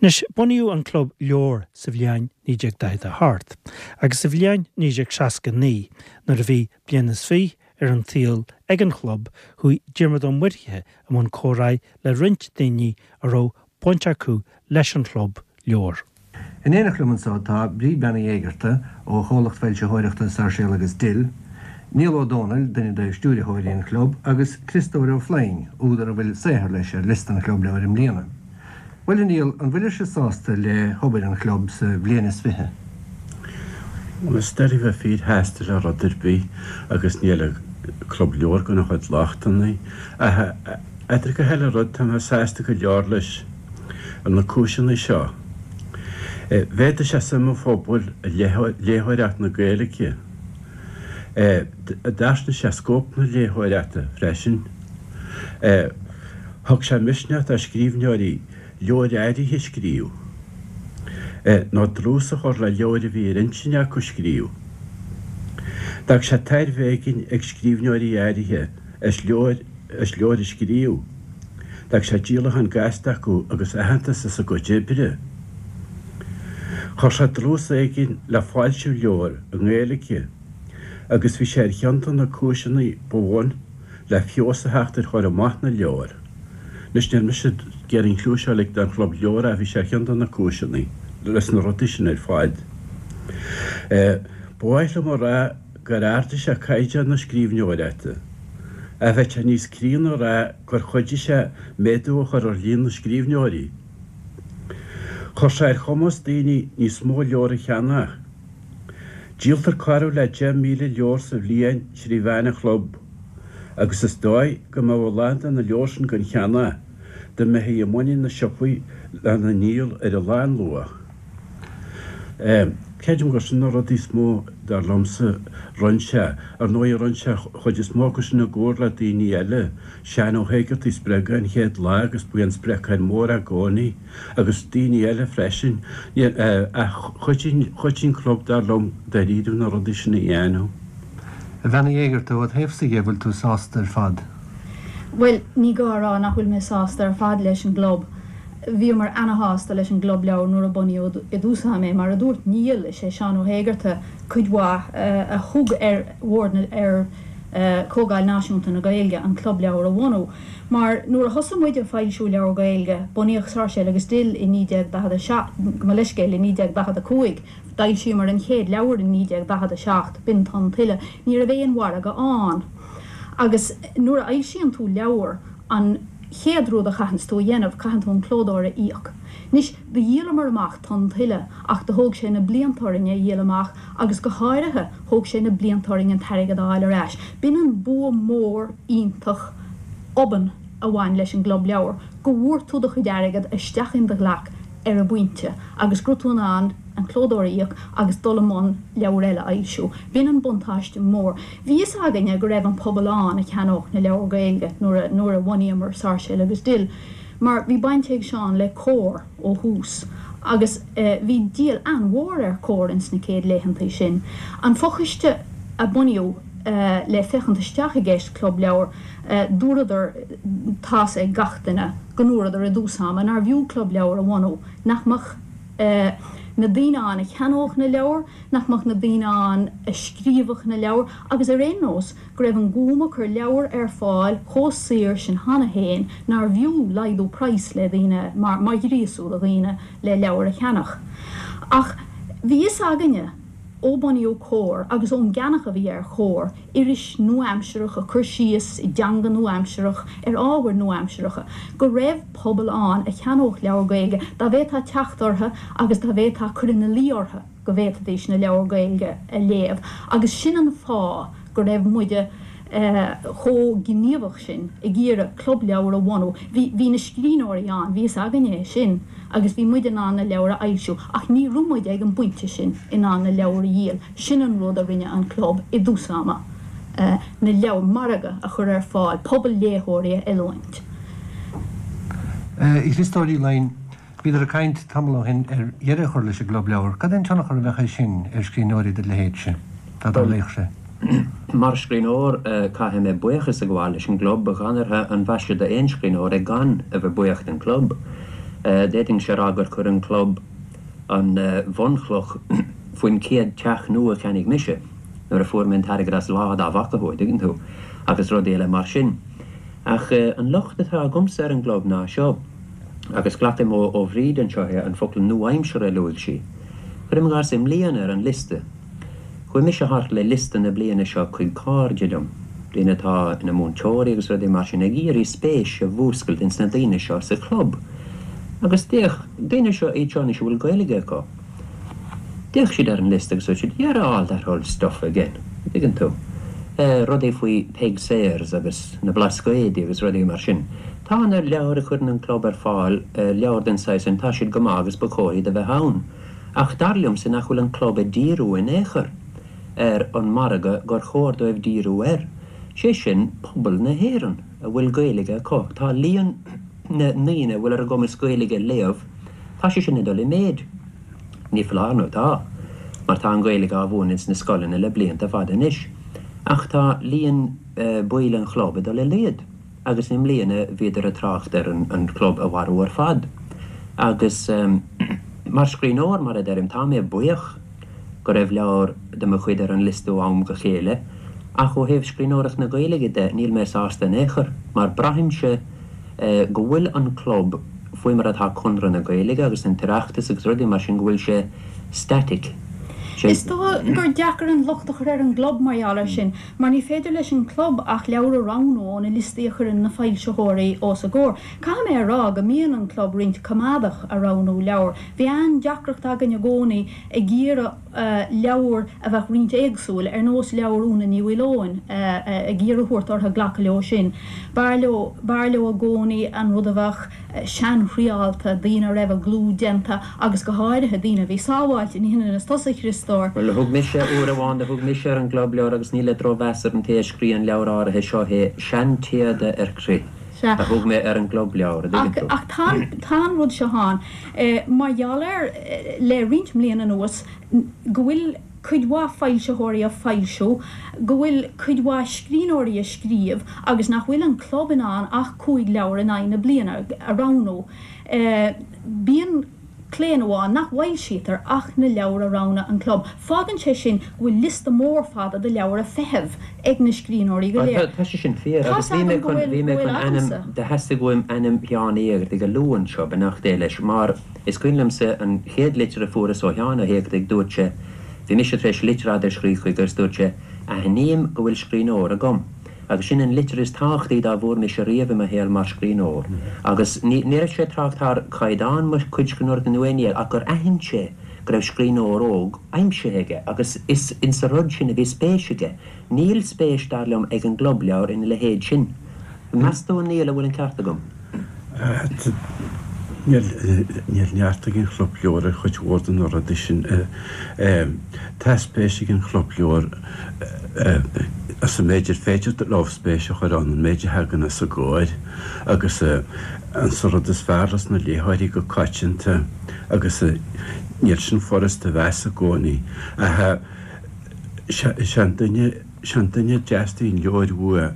Anois, bunaíodh an Club Leabhar sa bhliain 1948 agus sa bhliain 1969, nuair a bhí bliain is fiche ar an tsaol ag an chlub, chuaigh Diarmuid Ó Muirthile i mbun comhráidh le roinnt daoine a raibh baint acu leis an chlub leabhar. In éineacht liom anseo tá Bríd Bean Uí Éigearta ó chomhlacht foilsitheoireachta Sáirséal agus Dill, Niall Ó Dónaill, duine de stiúiritheoirí an chlub, agus Criostóir Ó Floinn, údar a bhfuil saothar leis ar liosta an Chlub Leabhar i mbliana. Bhuel, a Niall, an bhfuilirse sásta le hobair an chlub sa bhliain is fiche? Bhuel, is doiligh bheith fíorshásta le rud ar bith agus níl an Club Leabhar gan a chuid lochtanna. Ach idir gach uile rud, tá mé sásta go leor leis ar na cúiseanna seo. Mhéadaigh sé suim an phobail i léitheoireacht na Gaeilge. D'fhairsingigh sé scóip na léitheoireachta freisin. Thug sé misneach do scríbhneoirí leabhair áirithe a scríobh, nó dlús a chur le leabhair a bhí ar intinn acu a scríobh. D'fhág sé tairbhe éigin ag scríbhneoirí áirithe as leabhair as leabhair a scríobh. D'fhág sé díolachán gasta acu agus aitheantas as a gcuid oibre. Chuir sé dlús éigin le foilsiú leabhar i nGaeilge agus bhí sé ar cheann de na cúiseanna ba bhun le feabhas a theacht ar chur amach na leabhar. Anois níl mise ag iarraidh an chliú seo a ligint don Chlub Leabhar ach bhí sé ar cheann de na cúiseanna leis na rudaí sin ar fad. Ba mhaith liom a rá gur ardaigh sé caighdeán na scríbhneoireachta. Ach bheadh sé níos críonna a rá gur chuidigh sé méadú a chur ar líon na scríbhneoirí. Chuir sé ar chumas daoine níos mó leabhar a cheannach. Díoltar corradh le 10,000 leabhar sa bhliain trí mheán an chlub, agus is dóigh go mbeadh a lán de na leabhair sin gan cheannach dá mbeifí i muinín na siopaí lena ndíol ar a lánluach. Creidim gur sin na rudaí is mó, dar liomsa, rinne sé. Ar ndóigh, rinne sé an chuid is mó acu sin i gcomhar le daoine eile. Seán Ó hÉigeartaigh a spreag é an chéad lá agus ba é an spreagthóir mór é i gcónaí, agus daoine eile freisin. Ach chuidigh, chuidigh an club, dar liom, dáiríre na rudaí sin a dhéanamh. A Bhean Uí Éigeartaigh, ó do thaobhsa dhe, bhfuil tú sásta ar fad? Bhuel, ní gá a rá nach bhfuil mé sásta ar fad leis an gclub. Bhíomar ana-shásta leis an gClub Leabhar nuair a bunaíodh i dtús ama é. Mar a dúirt Niall, is é Seán Ó hÉigeartaigh cuid mhaith a thug ar bhord na, ar Chomhdháil Náisiúnta na Gaeilge an Club Leabhar a bhunú. Mar nuair a thosaigh muid ag foilsiú leabhar Gaeilge, bunaíodh Sáirséal agus Dill i 1947, gabh mo leithscéal, i 1945, D'fhoilsíomar an chéad leabhar i 1947, b'in Tonn Tuile. Ní raibh aon mhargadh ann. Agus nuair a fhoilsíonn tú leabhar, an chéad rud a chaitheanns tú a dhéanamh, caitheann tú an clódóir a íoc. Anois, do dhíolamar amach Tonn Tuile ach do thóg sé na blianta orainn é a dhíol amach agus go háirithe, thóg sé na blianta orainn an t-airgead a fháil ar ais. B'in an bua mór iontach obann a bhain leis an gClub Leabhar, go bhfuair tú do chuid airgead isteach in do ghlac ar an bpointe agus go raibh tú in ann an clódóir a íoc agus dul i mbun leabhar eile a fhoilsiú. B'in an buntáiste mór. Bhí fhios againne go raibh an pobal ann a cheannódh na leabhair Gaeilge nuair a nuair a bhunaíomar Sáirséal agus Dill mar bhí baint ag Seán le Comhar ó thús agus bhí díol an-mhór ar Comhar ins na céad laethantaí sin. An fochoiste a bunaíodh le féachaint isteach i gceist Club Leabhar, dúradar, tá's ag gach duine go ndúradar i dtús ama nár bhfiú Club Leabhar a bhunú, nach mbeadh na daoine ann a cheannódh na leabhair, nach mbeadh na daoine ann a scríobhadh na leabhair agus ar aon nós go raibh an Gúm ag cur leabhar ar fáil chomh saor sin cheana féin nár bhfiú laghdú praghas le daoine mar mar ghríosú do dhaoine le leabhair a cheannach. Ach bhí fhios againne ó bunaíodh Comhar agus ón gceannach a bhí ar Chomhar, iris nua-aimsearach ag cur síos i dteanga nua-aimsearach ar ábhair nua-aimsearacha, go raibh pobal ann a cheannódh leabhar Gaeilge dá bhféadfá teacht orthu agus dá bhféadfá cur ina luí orthu go bhféadfaidís na leabhair Gaeilge a léamh agus sin an fáth go raibh muide chomh gníomhach sin ag iarraidh club leabhar a bhunú. Bhí, bhí na scríbhneoirí ann, bhí fhios againne é sin agus bhí muid in ann na leabhair a fhoilsiú ach ní raibh muid ag an bpointe sin in ann na leabhair a dhíol. Sin an rud a rinne an club i dtús ama, na leabhair, margadh a chur ar fáil, pobal léitheoirí a oiliúint. A Chriostóir Uí Fhloinn, bhíodar ag caint tamall ó shin ar dheireadh a chur leis an gClub Leabhar. Cad é an tionchar a bheadh aige sin ar scríbhneoirí de do leithéidse, dá dtarlaíodh sé? Mar scríbhneoir, caithfidh mé buíochas a ghabháil leis an gclub. Dhanartha an mhaise d'aon scríbhneoir é gan a bheith buíoch den chlub. D'fhéadfainnse a rá gur chuir an club an bhunchloch faoin chéad teach nua a cheannaigh mise nuair a fuair mé an t-airgead as lá dá bhfaca thú, an dtuigeann tú, agus rudaí eile mar sin. Ach an locht atá agamsa ar an gclub ná seo, agus glacaim ó Bhríd anseo é, an focal nua-aimseartha a luaigh sí. Cuirim i gcás, i mbliana ar an liosta, Chuaigh mise thart le liosta na bliana seo chuig cairde liom, daoine atá ina múinteoirí agus rudaí mar sin, ag iarraidh spéis a mhúscailt ins na daoine seo sa chlub. Agus d'fhéach, daoine seo, iad seo anois a bhfuil Gaeilge acu, d'fhéach siad ar an liosta agus dúirt siad, yerra all that old stuff again, an dtuigeann tú? Rudaí faoi Peig Sayers agus na Blascaodaí agus rudaí mar sin. Tá na leabhair a chuireann an club ar fáil, leabhair den saghas sin, tá siad go maith agus ba chóir iad a bheith ann. Ach dar liomsa nach bhfuil an club ag díriú in aon chor ar an margadh gur chóir dóibh díriú air, sé sin pobal na hÉireann a bhfuil Gaeilge acu. Tá líon na ndaoine a bhfuil ar a gcumas Gaeilge a léamh, tá sé sin ag dul i méid. Ní foláir nó tá, mar tá an Ghaeilge á mhúineadh ins na scoileanna le blianta fada anois. Ach tá líon baill an chlub ag dul i laghad. agus i mbliana bhíodar ag trácht ar an chlub a mharú ar fad. Agus mar scríbhneoir, mar a deirim, tá mé buíoch go raibh leabhar de mo chuid ar an liosta ó am go chéile, ach ó thaobh scríbhneoireacht na Gaeilge de, níl mé sásta in aon chor, mar braithimse go bhfuil an club, faoi mar atá Conradh na Gaeilge agus an tOireachtas agus rudaí mar sin, go bhfuil sé static. Is dóigh gur deacair an locht a chur ar an gclub mar gheall air sin, mar ní féidir leis an gclub ach leabhair a roghnú ó na liostaí a chuireann na foilsitheoirí os a gcomhair. Caithfidh mé a rá go mbíonn an club roinnt coimeádach a roghnú leabhar. Bhí an-deacracht againn i gcónaí ag iarraidh leabhair a bheadh roinnt éagsúil, ar nós leabhar Úna Ní Mhaoileoin, ag iarraidh a thabhairt orthu glacadh leo sin. B'fhearr leo, b'fhearr leo i gcónaí an rud a bheadh seanthriálta, daoine a raibh a gclú déanta agus go háirithe daoine a bhí sábháilte, ní hionann is tusa, a Chriostóir. Bhuel, thug mise, uair amháin do thug mise ar an gClub Leabhar agus ní le drochmheas ar an té a scríobh an leabhar áirithe seo é, seantéada ar crith Sea. a thug mé ar an gClub Leabhar, a dtuigeann tú. Ach tá, tá an rud seo ann, mar gheall ar, le roinnt mbliana anuas, go bhfuil cuid mhaith foilsitheoirí ag foilsiú, go bhfuil cuid mhaith scríbhneoirí ag scríobh agus nach bhfuil an club in ann ach 5 leabhar in aghaidh na bliana a roghnú. Bíonn claonadh ann nach bhfoilsítear ach na leabhair a roghnaigh an club. Fágann sé sin go bhfuil liosta mór fada de leabhair ag feitheamh ag na scríbhneoirí go léir. Tá sé sin fíor Tá's agus bhí mé agam go chun, bhfuil, bhí mé go bhfuil chun ainm, agamsa. do theastaigh uaim ainm Sheáin Uí Éigeartaigh a lua anseo, beannacht Dé leis, mar Is cuimhin liomsa an chéad litir a fuaireas ó Sheán Ó hÉigeartaigh, dúirt sé, bhí mise tar éis litir fhada a scríobh chuige agus dúirt sé, aithním go bhfuil scríbhneoir agam. Agus sin an litir is tábhachtaí dá bhfuair mise riamh i mo shaol mar scríbhneoir. Agus ní ní raibh sé ag trácht thar chaighdeán mo chuid scríbhneoireachta nó aon ní eile ach gur aithin sé go raibh scríbhneoir óg aimsithe aige agus is insa rud sin a bhí spéis aige. Níl spéis, dar liom, ag an gClub Leabhar ina leithéid sin. Meas tú, a Niall, an bhfuil an ceart agam? Níl neart ag an Chlub Leabhar ar chuid mhór de na rudaí sin. Tá spéis ag an Chlub Leabhar sa méid ar féidir leo spéis a chur ann, an méid a thagann os a gcomhair agus an rud is fearr leis na léitheoirí go coitianta agus níl sin furast a mheas i gcónaí. Ach sé an duine, sé an duine a dteastaíonn leabhair uaidh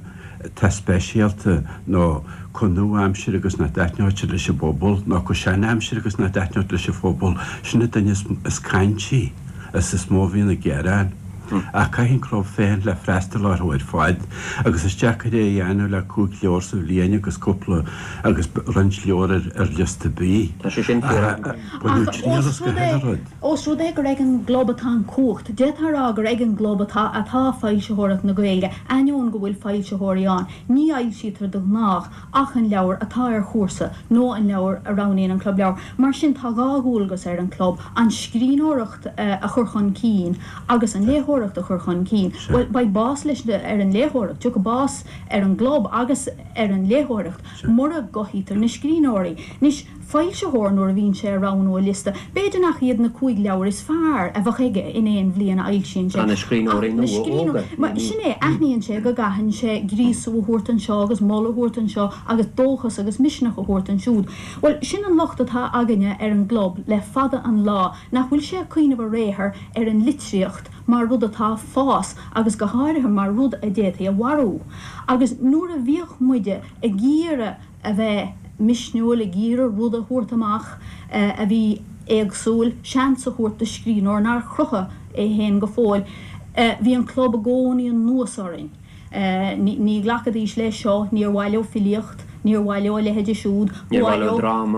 atá speisialta nó chomh nua-aimseartha agus nach dtaitneodh sé leis an bpobal, nó chomh sean-aimseartha agus nach dtaitneodh leis an phobal, sin an duine is caintí is is mó a bhíonn ag gearán. Ach caithfidh an club féachaint le freastal orthu ar fad agus is deacair é a dhéanamh le 5 leabhar sa bhliain agus cúpla agus roinnt leabhar ar liosta B. Tá sé sin fíor. Ach baineadh triail as go huile rud. Ós rud é gur ag an gclub atá an chumhacht, d'fhéadfá a rá gur ag an gclub atá atá foilsitheoireacht na Gaeilge, ainneoin go bhfuil foilsitheoirí ann, ní fhoilsítear de ghnách ach an leabhar atá ar chúrsa nó an leabhar a roghnaíonn an Club Leabhar. Mar sin tá 2 dhualgas ar an gclub, an scríbhneoireacht a chur chun cinn agus an léitheoireacht a chur chun cinn. Bhuel, beidh bás leis ar an léitheoireacht, tiocfaidh bás ar an gclub agus ar an léitheoireacht mura gcothaítear na scríbhneoirí. Anois. foilsitheoir nuair a bhíonn sé ag roghnú a liosta. B'fhéidir nach iad na 5 leabhar is fearr a bheadh aige in aon bhliain a fhoilsíonn sé, Tá na scríbhneoirí ach na nua scríbhneoirí, óga. mar sin é, aithníonn sé go gcaitheann sé gríosú a thabhairt anseo agus moladh a thabhairt anseo agus dóchas agus misneach a thabhairt ansiúd. Bhuel, sin an locht atá againne ar an gclub le fada an lá, nach bhfuil sé ag cuimhneamh ar aon chor ar an litríocht mar rud atá ag fás agus go háirithe mar rud a d'fhéadfaí a mharú. Agus nuair a bhíodh muide ag iarraidh a bheith. misniúil ag iarraidh rud a thabhairt amach a bhí éagsúil, seans a thabhairt do scríbhneoir nár chruthaigh é féin go fóill. Bhí an club i gcónaí anuas orainn. Ní ghlacfaidís leis seo, níor mhaith leo filíocht, níor mhaith leo a leithéide siúd, ba mhaith leo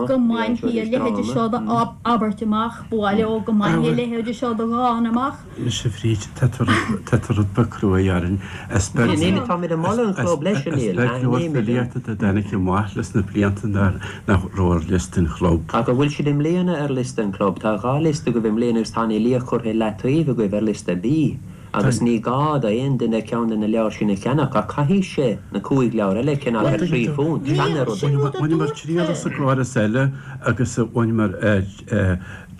go mbainfí a leithéide seo d'abairt amach, ba mhaith leo go mbainfí a leithéide seo de dhán amach. Anois a Bhríd, tá tú tá tú rud beag cruaidh orainn. Is beag Níl, táimid ag moladh an chlub leis, a Neil, is beag leabhar filíochta dá dtáinig amach leis na blianta nach raibh ar liosta an chlub. Ach an bhfuil siad i mbliana ar liosta an chlub? Tá 2 liosta agaibh i mbliana agus tá an fhilíocht curtha i leataobh agaibh ar liosta B. Agus ní gá d'aon duine ceann de na leabhair sin a cheannach, ach caithfidh sé na 5 leabhar eile a cheannach ar thrí phunt. Sin an rud. Bhaineamar triail as an gcóras eile agus bhaineamar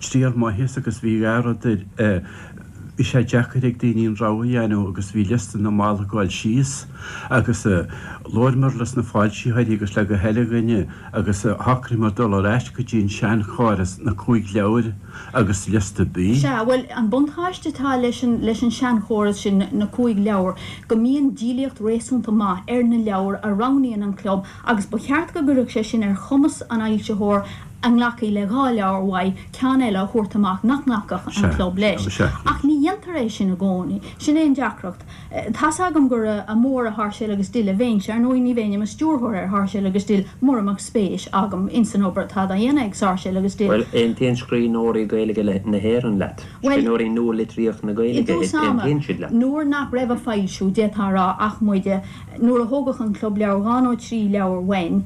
triail maith as agus bhí dhá rud air, bhí sé deacair ag daoine an rogha a dhéanamh agus bhí liosta na mall ag gabháil síos agus labhramar leis na foilsitheoirí agus le gach uile dhuine agus shocraíomar dul ar ais go dtí an seanchóras, na cúig leabhar. agus liosta B. Sea, bhuel, an buntáiste atá leis an, leis an seanchóras sin, na cúig leabhar, go mbíonn díolaíocht réasúnta maith ar na leabhair a roghnaíonn an club agus ba cheart go gcuirfeadh sé sin ar chumas an fhoilsitheoir a nglacfaidh le dhá leabhar uaidh ceann eile a thabhairt amach nach nglacfadh an club leis. Ach ní dhéantar é sin i gcónaí. Sin é an deacracht. Tá's agam gur mór i Sáirséal agus Dill a bheinnse, ar ndóigh ní bheinn i mo stiúrthóir ar Sháirséal agus Dill mura mbeadh spéis agam ins an obair atá dá dhéanamh ag Sáirséal agus Dill. Bhuel, aontaíonn scríbhneoirí Gaeilge na hÉireann leat. Bhuel, Scríbhneoirí nua-litríocht na i Gaeilge, dtús ama, aontaíonn siad leat. nuair nach raibh á foilsiú, d'fhéadfá a rá, ach muide, nuair a thógadh an Club Leabhar dhá nó trí leabhar uainn,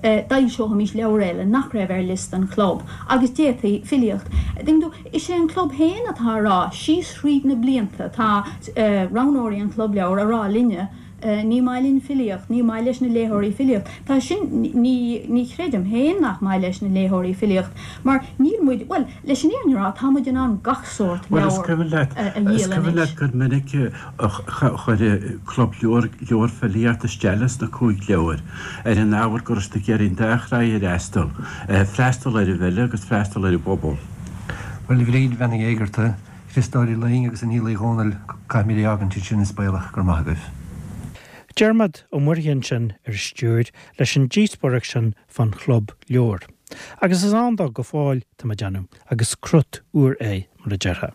d'fhoilseochaimis leabhar eile nach raibh ar liosta an chlub, agus d'fhéadfaí filíocht. Tuigeann tú, is é an club féin atá a rá, síos thríd na blianta, tá roghnóirí an Chlub Leabhar a rá linne, ní maith linn filíocht, ní maith leis na léitheoirí filíocht. Tá sin, ní, ní chreidim féin nach maith leis na léitheoirí filíocht, mar níl muid, bhuel, leis an fhírinne a rá, tá muid in ann gach sórt Bhuel, is leabhar cuimhin leat, a is dhíol cuimhin anois. leat gur minic a chuir Club Leabhar leabhar filíochta isteach leis na cúig leabhar, ar an ábhar go raibh siad ag iarraidh an dá thráigh a fhreastal, freastal ar an bhfile agus freastal ar an bpobal. Bhuel, a Bhríd Bhean Uí Éigearta, Chriostóir Uí Fhloinn agus a Néill Uí Dhomhnaill, caithfimid é a fhágaint ansin is baolach gur maith agaibh. Diarmaid Ó Muirthile ansin ar an stiúir leis an díospóireacht sin fán chlub leabhar. Agus is ann dó go fóill, tá mé ag déanamh, agus crut úr é, mar a déarfá.